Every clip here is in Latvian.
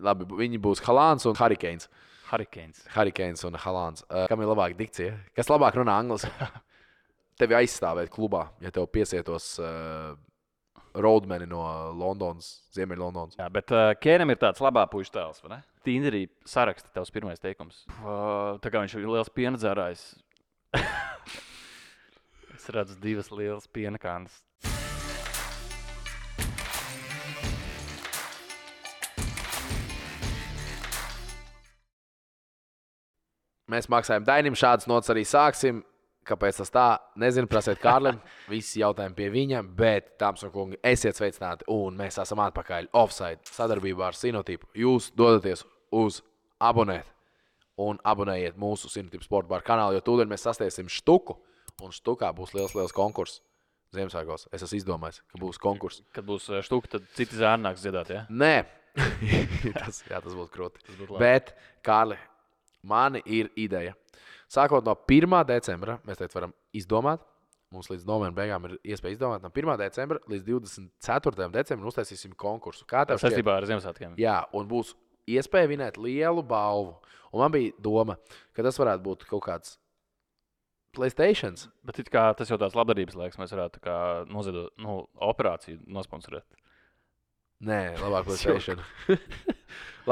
Labi, viņi būs Halāns un Hurricanes. Hurricanes Un Halāns. Kam ir labāka dikcija? Kas labāk runā angliski? Tevi aizstāvēt klubā, ja tev piesietos roadmeni no Londonas, Ziemeļlondonas. Jā, bet Kēnam ir tāds labā puiša tēls, vai ne? Tinderī saraksta tavs pirmais teikums. Tā kā viņš ir liels piena dzērājs. Es redzu 2 lielas piena kānas. Mēs maksājam Dainim, šādas nots arī sāksim. Kāpēc tas tā? Nezinu, prasiet Kārlim. Visi jautājumi pie viņa, bet, dāmas un kungi, esiet sveicināti. Un mēs esam atpakaļ offside sadarbībā ar Sinotipu. Jūs dodaties uz abonēt un abonējiet mūsu Sinotipu sporta bar kanālu, jo tūdaļ mēs sasniegsim štuku. Un štukā būs liels konkurss Ziemassvētkos. Es esmu izdomājis, ka būs konkurss. Kad būs štuka, tad citi zēni nāks dziedāt, ja? Nē, tas būtu krūti. Bet, Kārli, mani ir ideja. Sākot no 1. decembra, mēs teicu, varam izdomāt. Mums līdz novembra beigām ir iespēja izdomāt. No 1. decembra līdz 24. decembrim uztaisīsim konkursu. Kā tev šķiet? Saistībā ar Ziemassvētkiem. Jā, un būs iespēja vinēt lielu balvu. Un man bija doma, ka tas varētu būt kaut kāds PlayStation. Bet it kā tas jau tāds labdarības laiks, mēs varētu tā kā noziedot, operāciju nosponsorēt. Nē, labāk PlayStation.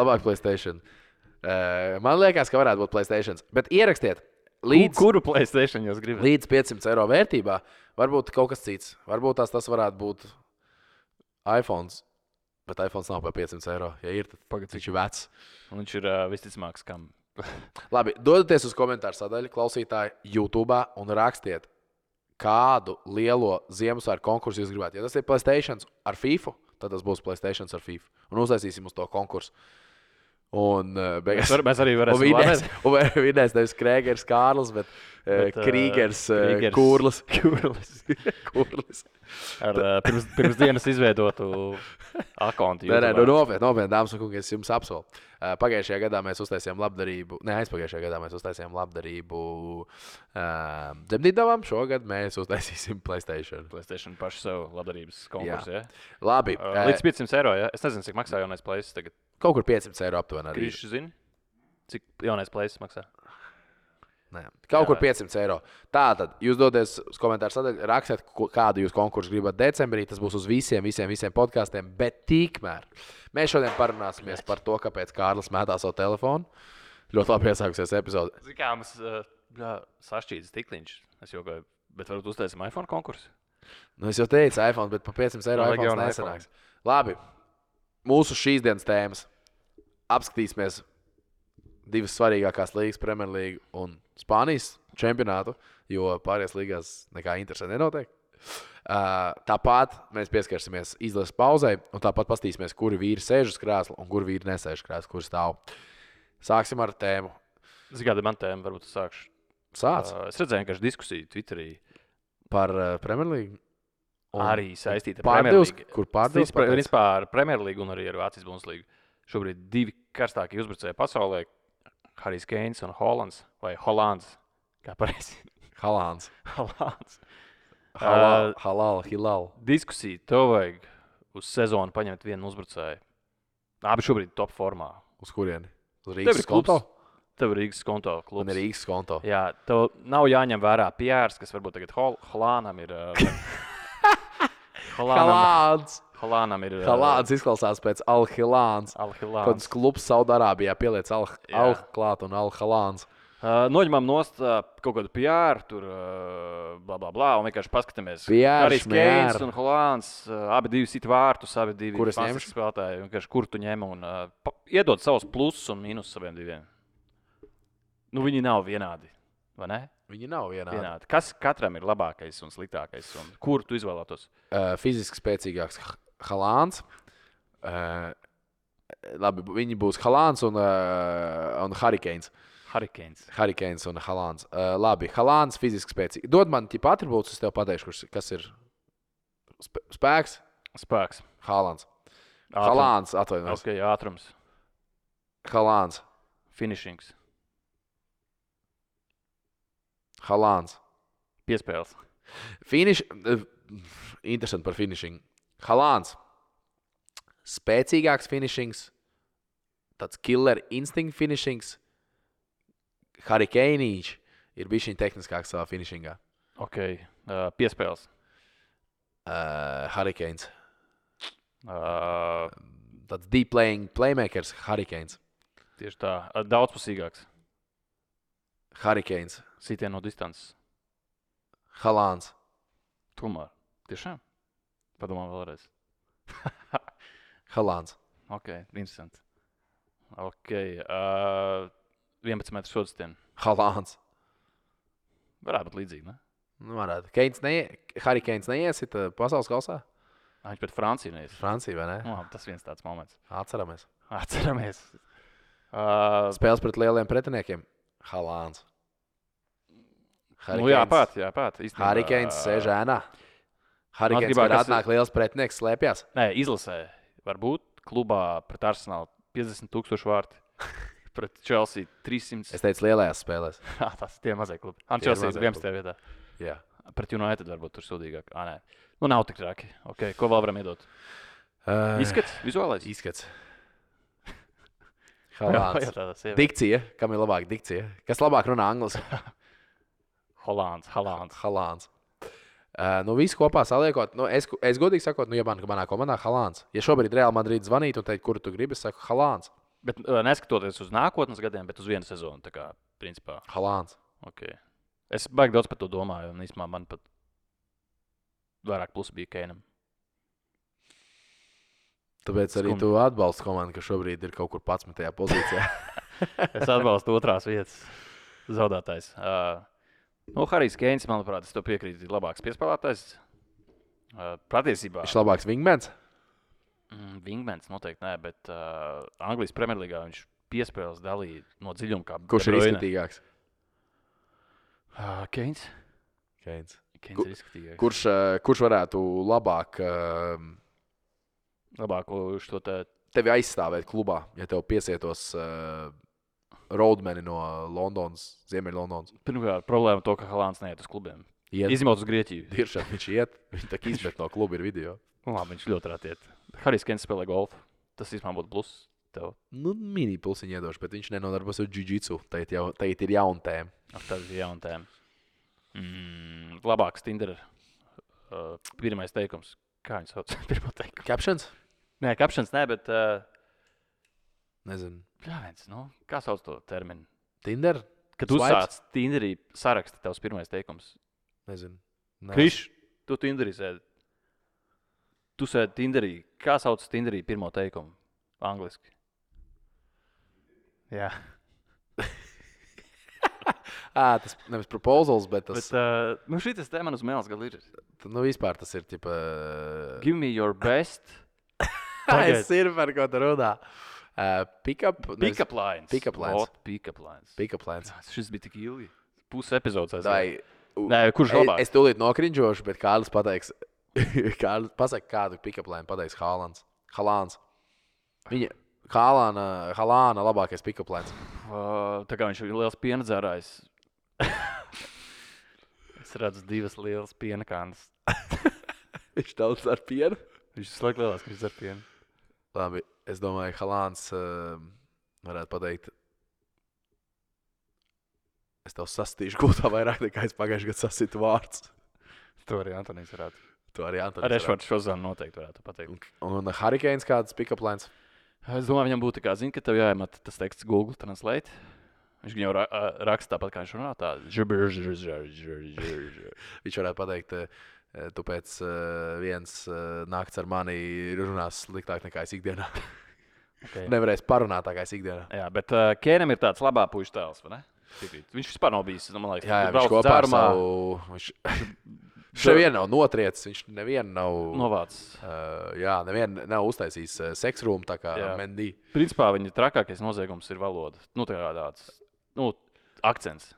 Labāk PlayStation. Man liekas, ka varētu būt PlayStation. Bet ierakstiet. Kuru PlayStation jūs gribat? Līdz 500 eiro vērtībā. Varbūt kaut kas cits. Varbūt tas varētu būt iPhone. Bet iPhone nav par 500 eiro. Ja ir, tad viņš ir vecs. Un viņš ir visticamāks kam. Labi, dodieties uz komentāru sadaļu, klausītāji, YouTube un rakstiet, kādu lielo Ziemassvētku konkursu jūs gribētu. Ja tas ir PlayStation ar FIFA, tad tas būs PlayStation ar FIFA. Un uztaisīsim uz to konkursu. Un mēs arī varēsim vinēt nevis Krēgers Kārlis, bet Krīgers Kurlis. Ar pirms dienas izveidotu akontu. Nē, nopietni, dāmas un kungi, es jums apsolu. Pagājušajā gadā mēs uztaisījām labdarību, aizpagājušajā gadā mēs uztaisījām labdarību dzemdībām. Šogad mēs uztaisīsim PlayStation. PlayStation pašu sev labdarības konkursu, ja? Labi. Līdz 500 eiro, ja? Es nezinu, cik maksā jaunais PlayStation tagad. Kaut kur 500 eiro aptuveni arī. Krīši zini, cik jaunais PlayStation maksā? Nē, kaut kur 500 eiro. Tātad, jūs doties uz komentāru sadaļu, rakstiet, kādu jūs konkursu gribat decembrī. Tas būs uz visiem podkastiem. Bet tikmēr mēs šodien parunāsimies par to, kāpēc Kārlis mētā savu telefonu. Ļoti labi iesākusies epizode. Zini, kā mums sašķīdis tikliņš. Es jokoju, bet varbūt uztaisim iPhone konkursu? Es jau teicu iPhone, bet par 500 eiro iPhone nesanāks. Labi, mūsu šīs dienas tēmas. Apskatīsimies 2 svarīgākās līgas, Premier League un Spānijas čempionātu, jo pārējās līgās nekā interesanti nenotiek. Tāpat mēs pieskarsimies izlases pauzei, un tāpat paskatīsimies, kuri vīri sēž uz krēsla un kuri vīri nesēž krēsla, kur stāv. Sāksim ar tēmu. Zini, kāda man tēma, varbūt es sākšu. Sāc. Es redzēju vienkārši diskusiju Twitterī. Par Premier League? Arī saistīta ar Premier League. Kur pārdevs? Vispār ar Premier League un arī ar Vācijas Bundeslīgu. Šobrīd 2 karstākie uzbrucēji pasaulē. Harijs Keins un Hollands, vai Hollands, kā pareizi? Halāns. Hilal. Diskusija, tev vajag uz sezonu paņemt vienu uzbrucēju. Abi šobrīd top formā. Uz kurieni? Uz Rīgas konto? Tev ir Rīgas konto klubs. Man ir Rīgas konto. Jā, tev nav jāņem vērā Pjērs, kas varbūt tagad Holānam ir... Halānam ir... Halāns izklausās pēc Al-Hilāns. Kāds klubs Saudārābijā pieliec Al-Klāt un Al-Halāns. Noņemam nost kaut kādu Pjēru, tur blablabla, un vienkārši paskatāmies. Harijs Keins un Holāns, abi 2 sit vārtus, abi 2 Kur es fantastiski spēlētāji. Vienkārši kur tu ņem un iedod savus plusus un mīnus saviem 2. Viņi nav vienādi, vai ne? Viņi nav vienādi. Kas katram ir labākais un sliktākais? Un kur tu izvēlētos? Fiziski spēcīgāks Halāns. Labi, viņi būs Halāns un Hurricanes. Hurricanes un Halāns. Labi, Halāns fiziski spēcīgi. Dod man tipa atribūtus, es tev pateikšu, kas ir spēks. Halāns. Halāns, atvainojies. Ok, ātrums. Halāns. Finishings. Halāns. Piespēles. Interesanti par finishing. Halāns. Spēcīgāks finishings tāds killer instinct finishings. Harry Kane ir bijis viņa tehniskāks savā finishingā. Ok, piespēles. Harry Kane. Uh, Tāds deep playmakers Harry Kane. Tieši tā, daudzpusīgāks. Harry Kane. Sitien no distances. Haalands. Tomēr. Tiešām? Padomā vēlreiz. Haalands. Ok, interesanti. Ok, 11 metru sodstien. Haalands. Varētu būt līdzīgi, ne? Nu, varētu. Harry Kane neiesit pasaules kausā? Viņš pret Franciju neies. Francija, vai ne? Tas viens tāds moments. Atceramies. Spēles pret lieliem pretiniekiem. Haalands. Jāpāt. Harry Kane sēž ēnā. Harry Kane, kad atnāk liels pretinieks, slēpjas. Nē, izlasē. Varbūt klubā pret Arsenalu 50,000 vārti. Pret Chelsea 300. Es teicu lielajās spēlēs. Tas tie mazie klubi. Chelsea 11. vietā. Jā. Pret United varbūt tur sūdīgāk. Nē. Nu, nav tik traki. Okay. Ko vēl varam iedot? Izskats? Vizuālais? Izskats. Haalands. Dikcija. Kam ir labāka dikcija? Kas labāk runā angliski? Haalands. Nu, visu kopā saliekot, es godīgi sakot, ja manā komandā Haalands. Ja šobrīd Real Madrid zvanītu un teikt, kuru tu gribi, es saku Haalands. Bet neskatoties uz nākotnes gadiem, bet uz vienu sezonu, tā kā, principā. Haalands. Okay. Es baigi daudz par to domāju, un īstenībā man pat vairāk plusi bija Kaneam. Tāpēc arī tu atbalsti komandu, ka šobrīd ir kaut kur 11. pozīcijā. Es atbalstu otrās vietas zaudētājs. Harijs Keins, manuprāt, es to piekrītu, ir labāks piespēlētājs. Patiesībā. Viņš ir labāks wingmans? Wingmans noteikti nē, bet Anglijas Premjerlīgā viņš piespēles dalīja no dziļuma kā Kurš ir izskatīgāks? Keins. Keins ir izskatīgāks. Kurš varētu labāk šo te... tevi aizstāvēt klubā, ja tev piesietos roadmeni no Londonas, Ziemeļlondonas? Pirmkārt, problēma to, ka Haalands neiet uz klubiem. Izņemot uz Grieķiju. Tiešām viņš iet, viņš tā kā izmet no kluba ir video. Labi, viņš ļoti rāt iet. Harijs Keins spēlē golfu. Tas īstenībā būtu pluss tev. Nu, mini plusiņu iedošu, bet viņš nenodarbos ar jiu-jitsu. Tagad ir jauna tēma. Tas ir jauna tēma. Labāks Tinder. Pirmais teikums. Kā viņš sauc? Pirmā teikuma. Captions? Nē, captions nē, bet... Nezinu. Pļāviens, kā sauc to terminu? Tinder? Kad uzsāc Tinderī saraksti tavs pirmais teikums. Nezinu. Kriš, tu Tinderī sēdi. Tu sēdi Tinderī. Kā sauc Tinderī pirmo teikumu? Angliski. Jā. Tas nevis proposals, bet tas... šitas te man uz mēles gal ir. Vispār tas ir, tipa... Give me your best. Es ir par ko tu runā. Pick-up lines. Pick-up lines. Šis bija tik ilgi. Pusi epizodes. Nē, kurš labāk? Es tūlīt nokrinžošu, bet Kārlis pateiks... Kārlis pasaka, kādu pick-up line pateiks Haalands. Viņa Haalana labākais pick-up lines. Tā kā viņš ir liels piena dzērājs. Es redzu divas lielas piena kānas. Viņš daudz ar pienu? Viņš slēg lielās, ka viņš ar pienu. Labi, es domāju, Haalands varētu pateikt, es tev sastīšu gultā vairāk nekā es pagājuši gadu sasitu vārds. To arī Antonijs varētu. Ar Ešvards Šozanu noteikti varētu pateikt. Un Harry Kane kāds pick-up lines? Es domāju, viņam būtu kā zina, ka tev jāiemet tas teksts Google Translate. Viņš jau raksta tāpat, kā viņš runā tā. Viņš varētu pateikt, tu pēc viens nakts ar mani runās sliktāk nekā es ikdienā. Okay. Nevarēs parunāt tā kā es ikdienā. Jā, bet Kēnam ir tāds labā puiša tēls, vai ne? Viņš vispār nav bijis, man liekas. Jā, viņš kopā ar savu... Viņš nevienu nav notriecis, viņš nevienu nav... Novācis. Nevienu nav uztaisījis seksrūmu, tā kā Mendy. Principā viņa trakākais noziegums ir valoda. Tā kā tāds, akcents.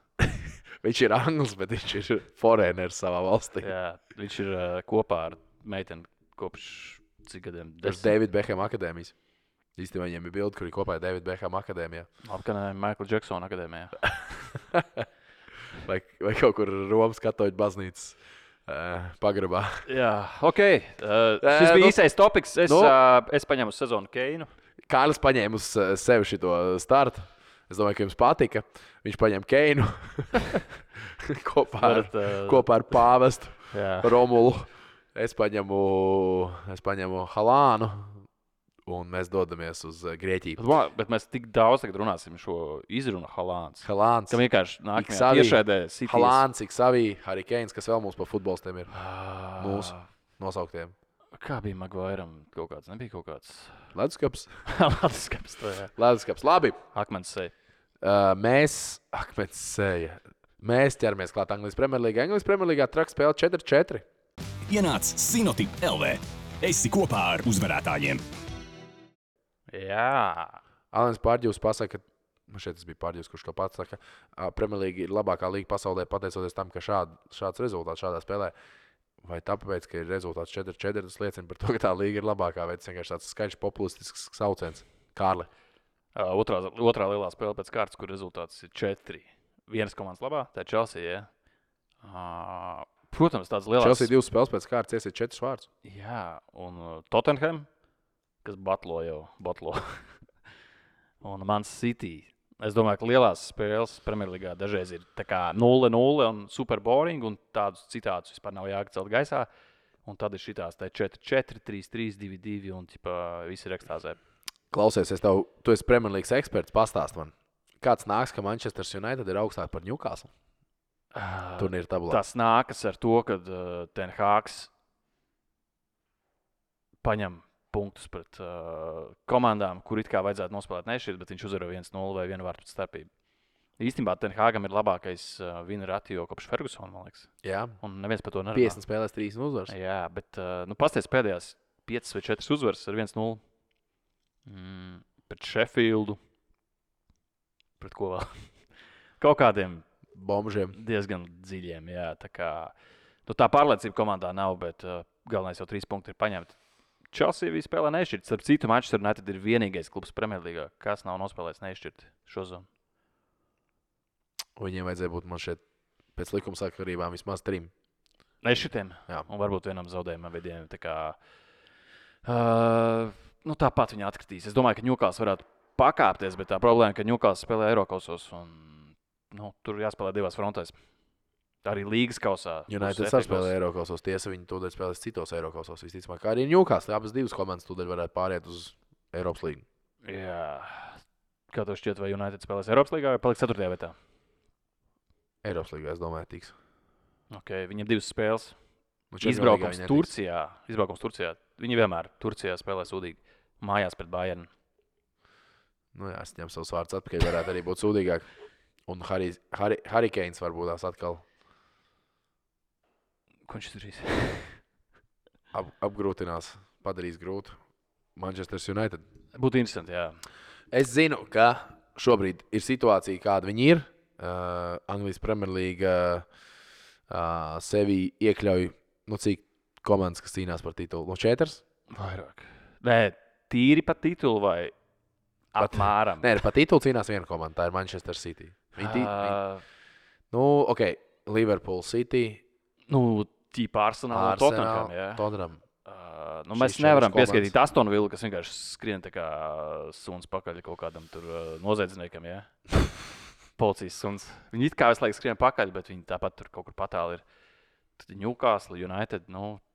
Viņš ir anglis, bet viņš ir foreigners savā valstī. Jā, viņš ir kopā ar meiteni kopš cik gadiem? Pēc David Beckham akadēmijas. Īstenībā viņiem ir bildi, kur ir kopā ar David Beckham akadēmijā. Apkanē Michael Jackson akadēmijā. vai kaut kur Romas katoļu baznīcas pagrabā. Jā, ok. Šis bija īsais topiks. Es paņemu sezonu Keinu. Kārlis paņēma uz sevi šito startu. Es domāju, ka jums patika. Viņš paņēma Keinu kopā ar Pāvestu Romulu. Es paņemu Halānu. Un mēs dodamies uz Grieķiju. Bet mēs tik daudz tagad runāsim šo izrunu Halāns. Halāns. Kam vienkārši nākamajā tiešraidē Citys. Halāns, Iksavī, Harry Kanes, kas vēl mums pa futbolistiem ir. Mūsu nosauktiem. Kā bija Maguiram kaut kāds? Nebija kaut kāds? Leduskaps. Leduskaps, to jā. Leduskaps. Labi. Akmens seja. Mēs ķeramies klāt Anglijas Premjerlīgā. Anglijas Premjerlīgā traks spēle 4-4. Ienāc Sinotip LV. Esi kopā ar uzvarētājiem. Jā. Alens Pārģivs pasaka, šeit tas bija Pārģivs, kurš to pats saka, Premjerlīga ir labākā līga pasaulē pateicoties tam, ka šāds rezultāts šādā spēlē. Vai tāpēc, ka ir rezultāts 4-4, tas liecina par to, ka tā līga ir labākā, vai tas vienkārši tāds skaļš populistisks sauciens. Kārli. Otrā lielā spēle pēc kārtas, kur rezultāts ir 4. Vienas komandas labā, tā ir Chelsea, jā. Protams, tāds lielāks. Chelsea 2 spēles pēc kārtas iesiet 4 vārdus. Jā, un Tottenham, kas batlo. Un Man City. Es domāju, ka lielās spēles Premjerlīgā dažreiz ir tā kā 0-0 un super boring, un tādus citātus vispār nav jācelt gaisā. Un tad ir šitās tā 4-4, 3-3, 2-2 un visi ir ekstāzē. Klausies, tu esi Premjerlīgas eksperts, pastāst man. Kāds nāks, ka Manchester United ir augstāk par Newcastle? Turnīra tabulā. Tas nākas ar to, ka Ten Hāgs paņem punktus pret komandām, kur it kā vajadzētu nospēlēt nešķirt, bet viņš uzvaro 1-0 vai 1 vārtu starpību. Īstenībā Ten Hāgam ir labākais win ratio kopš Fergusona, man liekas. Jā. Un neviens par to nerunā. 50 spēlēs 3 uzvaras. Jā, bet pasties pēdējās 5 vai 4 uzvaras ar 1-0. Pret Sheffieldu. Pret ko vēl? Kaut kādiem bombžiem. Diezgan dziļiem, jā. Tā pārliecība komandā nav, bet galvenais jau 3 punkti ir paņemti. Chelsea bija spēlē nešķirt. Starp citu, Manchester United ir vienīgais klubs Premjerlīgā, kas nav nospēlējis nešķirt šo zonu. Viņiem vajadzēja būt man šeit pēc likuma sakarībām vismaz 3. Nešķirtiem? Jā. Un varbūt vienam zaudējumam vidiem. Tāpat viņi atkritīs. Es domāju, ka Newcastle varētu pakāpties, bet tā problēma, ka Newcastle spēlē Eirokausos un tur jāspēlē divās frontēs. Arī līgas kausā. United saspēlē Eirokausos. Tiesa, viņi tūdaļ spēlēs citos Eirokausos. Visticamāk, kā arī Newcastle. Abas divas komandas tūdaļ varētu pāriet uz Eiropas līgu. Jā. Kā tev šķiet, vai United spēlēs Eiropas līgā vai paliks 4. vietā? Eiropas līgā, es domāju, tiks. Okay, viņam 2 spēles. Izbraukums Turcijā. Viņi vienmēr Turcijā spēlē sūdīgi. Mājās pret Bayernu. Jā, es ņemu savus vārdus atpakaļ. Varētu arī būt sūdīgāk. Un Harry Kanes varbūt tās atkal. Ko viņš darīs? Apgrūtinās, padarīs grūtu Manchester United. Būtu interesanti, jā. Es zinu, ka šobrīd ir situācija, kāda viņi ir. Anglijas Premjerlīga sevi iekļauj, cik komandas, kas cīnās par titulu? No 4? Vairāk. Nē, tīri par titulu vai apmēram? Nē, par titulu cīnās viena komanda, tā ir Manchester City. Liverpool City. Tīpa Arsenal un Tottenham, jā. Tottenham. Mēs nevaram pieskaitīt Aston Villa, kas vienkārši skrien tā kā suns pakaļ kaut kādam tur noziedzniekam, jā. Policijas suns. Viņi it kā visu laiku skrien pakaļ, bet viņi tāpat tur kaut kur patāli ir. Tad Newcastle, United,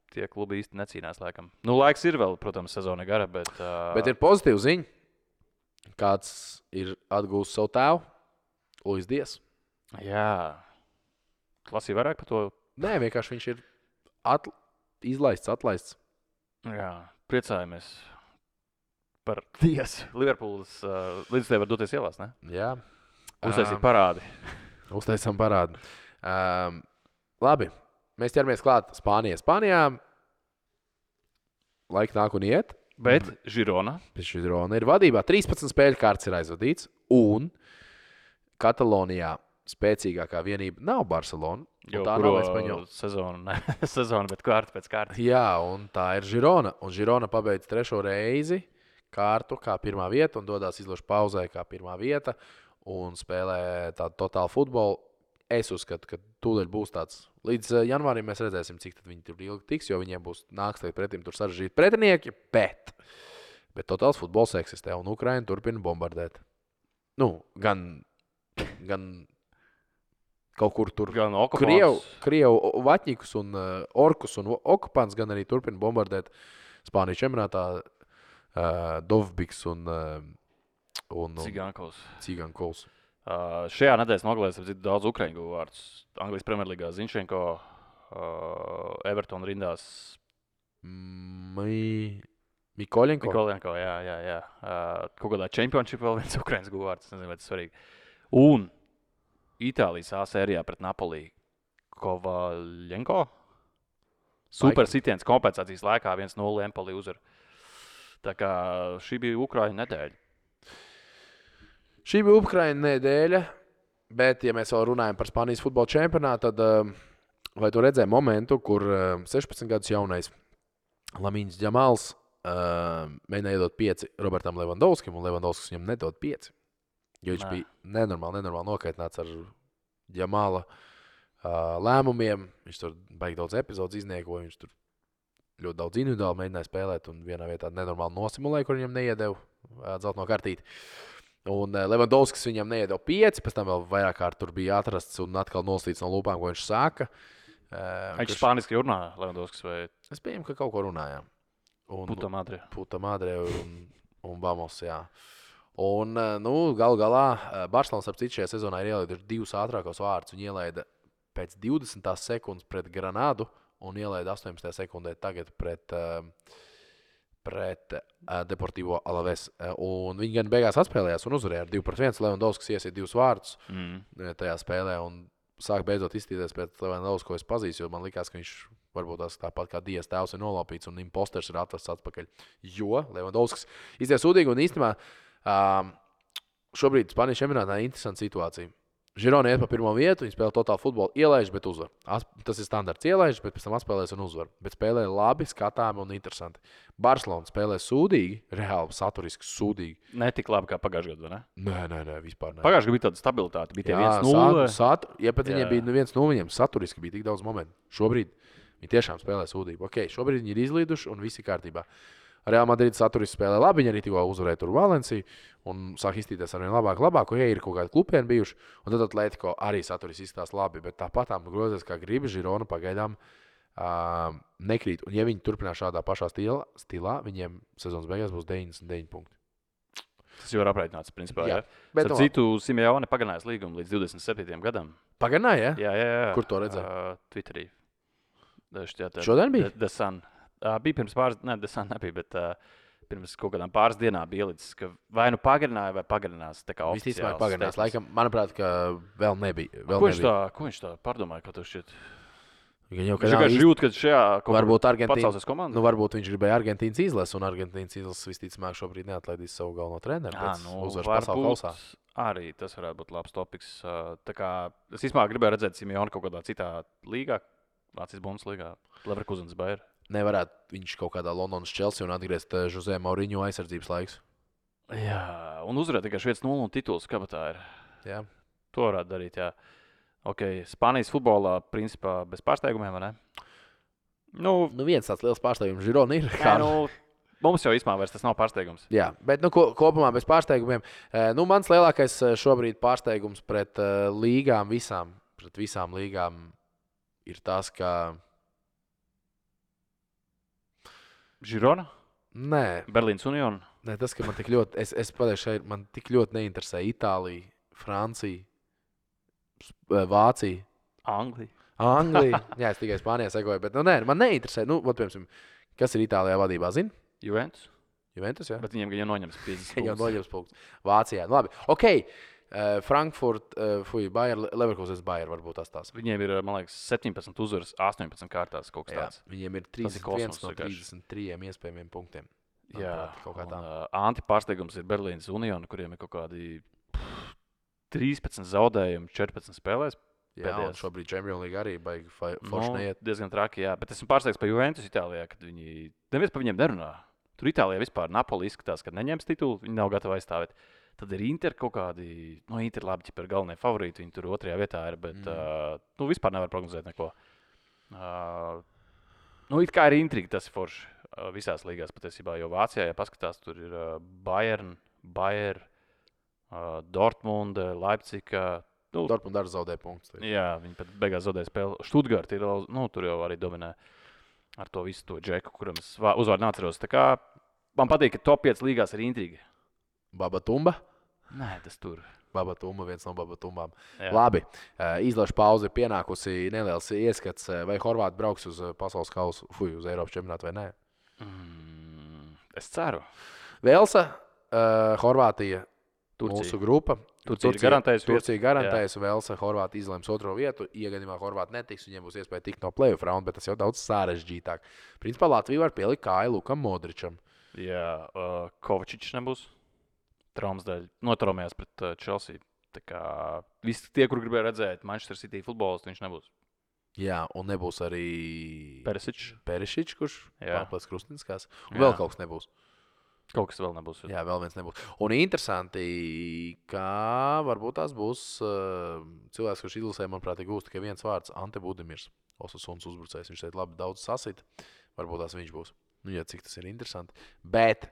tie klubi īsti necīnās laikam. Laiks ir vēl, protams, sezona gara, bet... Bet ir pozitīva ziņa. Kāds ir atgūst savu tēvu? Luis Dias. Jā. Lasīja vairāk par to? Nē, vienkārši viņš ir atlaists. Jā, priecājamies par Dias. Liverpools līdz tev var doties ielās, ne? Jā. Uztaisīt parādi. Uztaisām parādi. Labi, mēs ķeramies klāt Spānijā. Spānijā laika nāk un iet. Bet Girona ir vadībā. 13 spēļu kārts ir aizvadīts. Un Katalonijā spēcīgākā vienība nav Barcelona. Tā nav Espaņola. Sezona, bet kārta pēc kārtas. Jā, un tā ir Girona. Un Girona pabeidz 3. reizi kārtu kā 1. vieta un dodās izložu pauzē kā 1. vieta un spēlē tādu totālu futbolu. Es uzskatu, ka tūdaļ būs tāds. Līdz janvārim mēs redzēsim, cik tad viņi tur ilgi tiks, jo viņiem būs nāks pretim tur sarežģīti pretinieki, bet Bet totāls futbols eksistē, un Ukraina turpina bombardēt. Nu, gan kaut kur tur gan okupants. Krievu vaķņikus un orkus un okupants, gan arī turpina bombardēt Spānijas čempionātā Dovbiks un Cigankovs. Šajā nedēļas nogalēs daudz ukraiņu guvu vārdus. Anglijas Premjerlīgā Zinchenko, Everton rindās. Mikoļenko, jā. Kaut kādā championship vēl viens ukraiņas guvu vārds. Nezinu, vai tas svarīgi. Un Itālijas A sērijā pret Napoli Kovaļenko. Super sitiens kompensācijas laikā 1-0 Empoli uzvar. Tā kā šī bija Ukraiņa nedēļa. Šī bija Ukraiņa nedēļa, bet, ja mēs vēl runājam par Spānijas futbola čempionātu, tad vai tu redzēji momentu, kur 16 gadus jaunais Lamīns Džamāls mēģināja iedot 5 Robertam Levandovskim, un Levandovskis viņam nedod 5. Jo viņš bija nenormāli nokaitināts ar Džamāla lēmumiem. Viņš tur baigi daudz epizodes izniekoja, viņš tur ļoti daudz individuāli mēģināja spēlēt, un vienā vietā nenormāli nosimulēja, kur viņam neiedeva dzelteno kartīti. Un Levandovskis viņam neiedeva 5, pēc tam vēl vairāk kārt tur bija atrasts un atkal noslīts no lūpām, ko viņš sāka. Viņš spāniski runā, Levandovskis, vai? Es pieņemu, ka kaut ko runājām. Puta madre un vamos, jā. Un, galu galā, Barcelonas ap citu šajā sezonā ir ielaiduši 2 ātrākos vārdus. Viņi ielaida pēc 20 sekundes pret Granadu un ielaida 18. sekundē tagad pret Deportivo Alaves. Un viņi gan beigās atspēlējās un uzvarēja ar 2-1. Levandovskis iesiet 2 vārdus tajā spēlē un sāk beidzot izstīties pēc Levandovskis, ko es pazīstu, jo man likās, ka viņš varbūt tās tāpat kā Dievs tēvs ir nolaupīts un imposters ir atvests atpakaļ. Jo Levandovskis izties sūdīgi un īstenībā šobrīd Spānijas čempionātā ir interesanta situācija. Girona iet pa pirmo vietu, viņi spēlē totālu futbolu, ielaiž, bet uzvar. Tas ir standarts, ielaiž, bet pēc tam atspēlēs un uzvar. Bet spēlē labi, skatāmi un interesanti. Barcelona spēlē sūdīgi, reāli saturiski sūdīgi. Ne tik labi kā pagājušajā gadā, ne? Nē, vispār ne. Pagājušajā gadā bija tāda stabilitāte, bija tie 1-0. Ja pat viņiem bija 1-0, viņiem saturiski bija tik daudz momentu. Šobrīd viņi tiešām spēlē sūdīgi. Ok, šobrīd viņi ir izlīduši un viss ir kārtībā. Real Madrid saturiski spēlē labi, viņi arī tikko uzvarēja tur Valenciju un sāk izstīties ar vien labāk, ja ir kaut kādi klupieni bijuši, un tad Atletico arī saturiski izstās labi, bet tāpatām grozies, kā gribi, Girona pagaidām nekrīt, un ja viņi turpinās šādā pašā stilā, viņiem sezonas beigās būs 99 punkti. Tas jau ir aprēķināts, principā, jā. Bet citu Simeone pagarinājis līgumu līdz 27. gadam. Pagarināja, ja? Jā. Kur to redzēja? Twitterī. Šodien bija? The Sun. Bija pirms pāris, The Sun nebija, bet pirms kaut kādām pāris dienām bija ielicis, ka vai nu pagarināja, vai pagarinās. Visticamāk pagarinās. Laikam, manuprāt, ka vēl nebija. Ko viņš tā pārdomāja, ko tu šķiet? Viņš vienkārši jūt, ka šajā pacelsas komandā. Varbūt viņš gribēja Argentīnas izlasi, un Argentīnas izlases visticamāk šobrīd neatlaidīs savu galveno treneru. Varbūt arī tas varētu būt labs topiks. Tā kā es īstenībā gribēju redzēt Simeoni kaut kādā citā līgā, Vācijas Bundeslīgā, Leverkusens Bayer. Nevarētu viņš kaut kādā Londonas Chelsea un atgriezt Jose Mourinho aizsardzības laiks. Jā, un uzvarēt tikai 1-0 un tituls kabatā ir. Jā. To varētu darīt, jā. Ok, Spānijas futbolā principā bez pārsteigumiem, vai ne? Viens tāds liels pārsteigums Girona ir. Mums jau īstenībā vairs tas nav pārsteigums. Jā, bet kopumā bez pārsteigumiem. Mans lielākais šobrīd pārsteigums pret visām līgām ir tas, ka Girona? Nē. Berlīnas Union? Nē, tas, ka man tik ļoti, man tik ļoti neinteresē Itālija, Francija, Vācija. Anglija. Jā, es tikai Spānijā sekoju, bet man neinteresē. Piemēram, kas ir Itālijā vadībā, zini? Juventus, jā. Bet viņiem gan jau noņems 50 jau noņems punktus. Vācijā, labi. Ok. Frankfurt, Bayer, Leverkusens Bayer varbūt tās. Viņiem ir, man liekas, 17 uzvaras, 18 kārtās kaut kas tāds. Viņiem ir 31 no 33 iespējamiem punktiem. Jā, antipārsteigums ir Berlīnas Union, kuriem ir kaut kādi 13 zaudējumi 14 spēlēs. Jā, un šobrīd Champions League arī baigi forši neiet. Diezgan traki, jā. Bet esmu pārsteigts par Juventus Itālijā, kad viņi neviens par viņiem nerunā. Tur Itālijā vispār Napoli izskatās, ka neņems titulu, viņi nav gatavi aizstāvēt. Tad ir Inter kaut kādi, Inter labi, ja ir galvenie favorīti, viņi tur otrajā vietā ir, bet vispār nevar prognozēt neko. It kā ir intriga, tas ir forši. visās līgās patiesībā, jo Vācijā, ja paskatās, tur ir Bayern, Dortmunde, Leipziga. Dortmund arī zaudēja punktus. Jā, viņi pat beigās zaudēja spēli. Stuttgart ir, tur jau arī dominē ar to visu to džeku, kuram es uzvārdu neatceros. Tā kā man patīk, ka top 5 līgās ir intriga. Babatumba? Nē, tas tur. Babatumba, viens no Babatumbām. Jā. Labi, izlaša pauze ir pienākusi neliels ieskats, vai Horvāti brauks uz pasaules kausu, uz Eiropas čempionātu vai nē. Es ceru. Velsa, Horvātija, mūsu grupa. Turcija garantējusi, Velsa, Horvātija izlems otro vietu. Iegadījumā Horvāti netiks, viņiem būs iespēja tikt no playoff raunda, bet tas jau daudz sarežģītāk. Principā Latvija var pielikt kāju Lukam Modričam. Jā, Kovačičs nebūs. Traumas dēļ notraumējās pret Chelsea. Tā kā visi tie, kur gribēja redzēt Manchester City futbolistu, viņš nebūs. Jā, un nebūs arī Perišičs, kurš pārplēs Krustinskās. Un vēl kaut kas nebūs. Kaut kas vēl nebūs. Jā, vēl viens nebūs. Un interesanti, ka varbūt tās būs cilvēks, kurš izlasē, manuprāt, gūst tikai viens vārds - Ante Budimirs. Osasunas uzbrucējs. Viņš šeit labi daudz sasita. Varbūt tās viņš būs. Jā, cik tas ir interesanti. Bet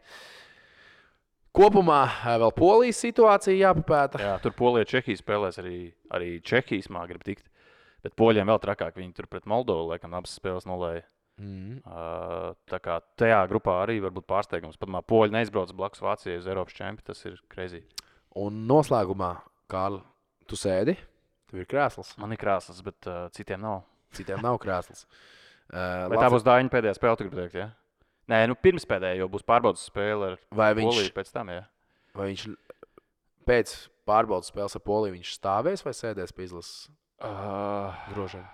kopumā vēl Polijas situācija jāpapēta. Jā, tur Polija Čehija spēlēs arī Čehijas mā grib tikt. Bet poļiem vēl trakāk. Viņi tur pret Moldovu, laikam, abas spēles nolēja. Tā kā tajā grupā arī var būt pārsteigums. Pat poļi neizbrauc blakus Vācijai uz Eiropas čempionu. Tas ir crazy. Un noslēgumā, Kārli, tu sēdi? Tev ir krēsls? Man ir krēsls, bet citiem nav. Citiem nav krēsls. Vai tā būs Dāņa pēdējā spēle, tu gribi teikt, ja? Nē, pirms pēdējā jau būs pārbaudas spēle ar Poliju pēc tam, jā. Vai viņš pēc pārbaudas spēles ar Poliju viņš stāvēs vai sēdēs pie izlases grožiem?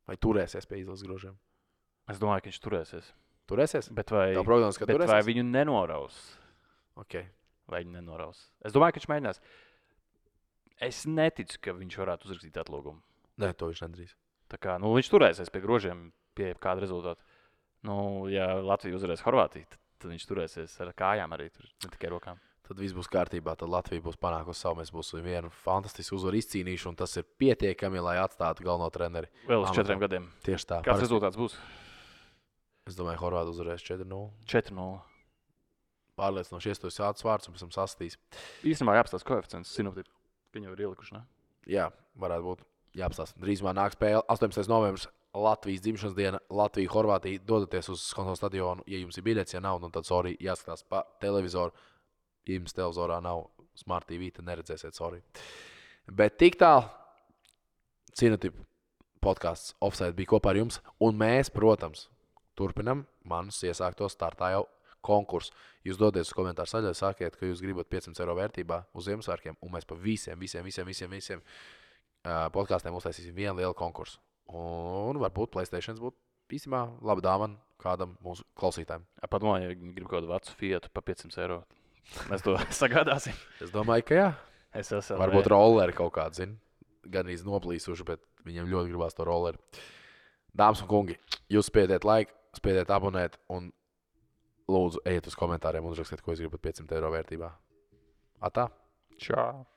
Vai turēsies pie izlases grožiem? Es domāju, ka viņš turēsies. Turēsies? Bet vai viņu nenoraus? Okay. Vai viņu nenoraus? Es domāju, ka viņš mēģinās. Es neticu, ka viņš varētu uzrakstīt atlūgumu. Nē, to viņš nedarīs. Tā kā, viņš turēsies pie grožiem, pie kāda rezultāta. Ja Latvija uzvarēs Horvātiju, tad viņš turēsies ar kājām arī, ne tikai rokām. Tad viss būs kārtībā, tad Latvija būs panākusi savu, mēs būsim vienu fantastisku uzvaru izcīnījuši, un tas ir pietiekami, lai atstātu galveno treneri. Vēl uz 4 gadiem. Tieši tā. Kāds rezultāts būs? Es domāju, Horvāti uzvarēs 4-0. 4-0. Pārliecinoši iestos ātrs vārds un pēc tam sastīs. Īstenībā jāapstās koeficients, sinoptipi. Viņi jau ir ielikuši, ne? Jā, varētu būt jāapstās. Drīzumā nāk spēle 18. novembris. Latvijas dzimšanas diena, Latvija, Horvātija. Dodaties uz kontrolu stadionu, ja jums ir biļets, ja nav, tad sorry, jāskatās pa televizoru. Ja jums televizorā nav Smart TV, tad neredzēsiet, sorry. Bet tik tālu Cinotipu podcasts Offside bija kopā ar jums, un mēs, protams, turpinam manus iesāktos startā jau konkursu. Jūs dodaties uz komentāru saļai, sakiet, ka jūs gribat 500 eiro vērtībā uz Ziemassvētkiem, un mēs pa visiem podkastiem uztaisīsim vienu lielu konkursu. Un varbūt PlayStation būtu īstenībā laba dāvana kādam mūsu klausītājiem. Padomāju, ja viņi grib kaut kādu vecu Fiatu pa 500 eiro. Mēs to sagādāsim. Es domāju, ka jā. Varbūt rolleri kaut kādu, zin. Gan arī noplīsuši, bet viņiem ļoti gribās to rolleri. Dāmas un kungi, jūs spiediet laiku, spiediet abonēt un lūdzu ejiet uz komentāriem un uzrakstiet, ko jūs gribat 500 eiro vērtībā. Atā? Čau!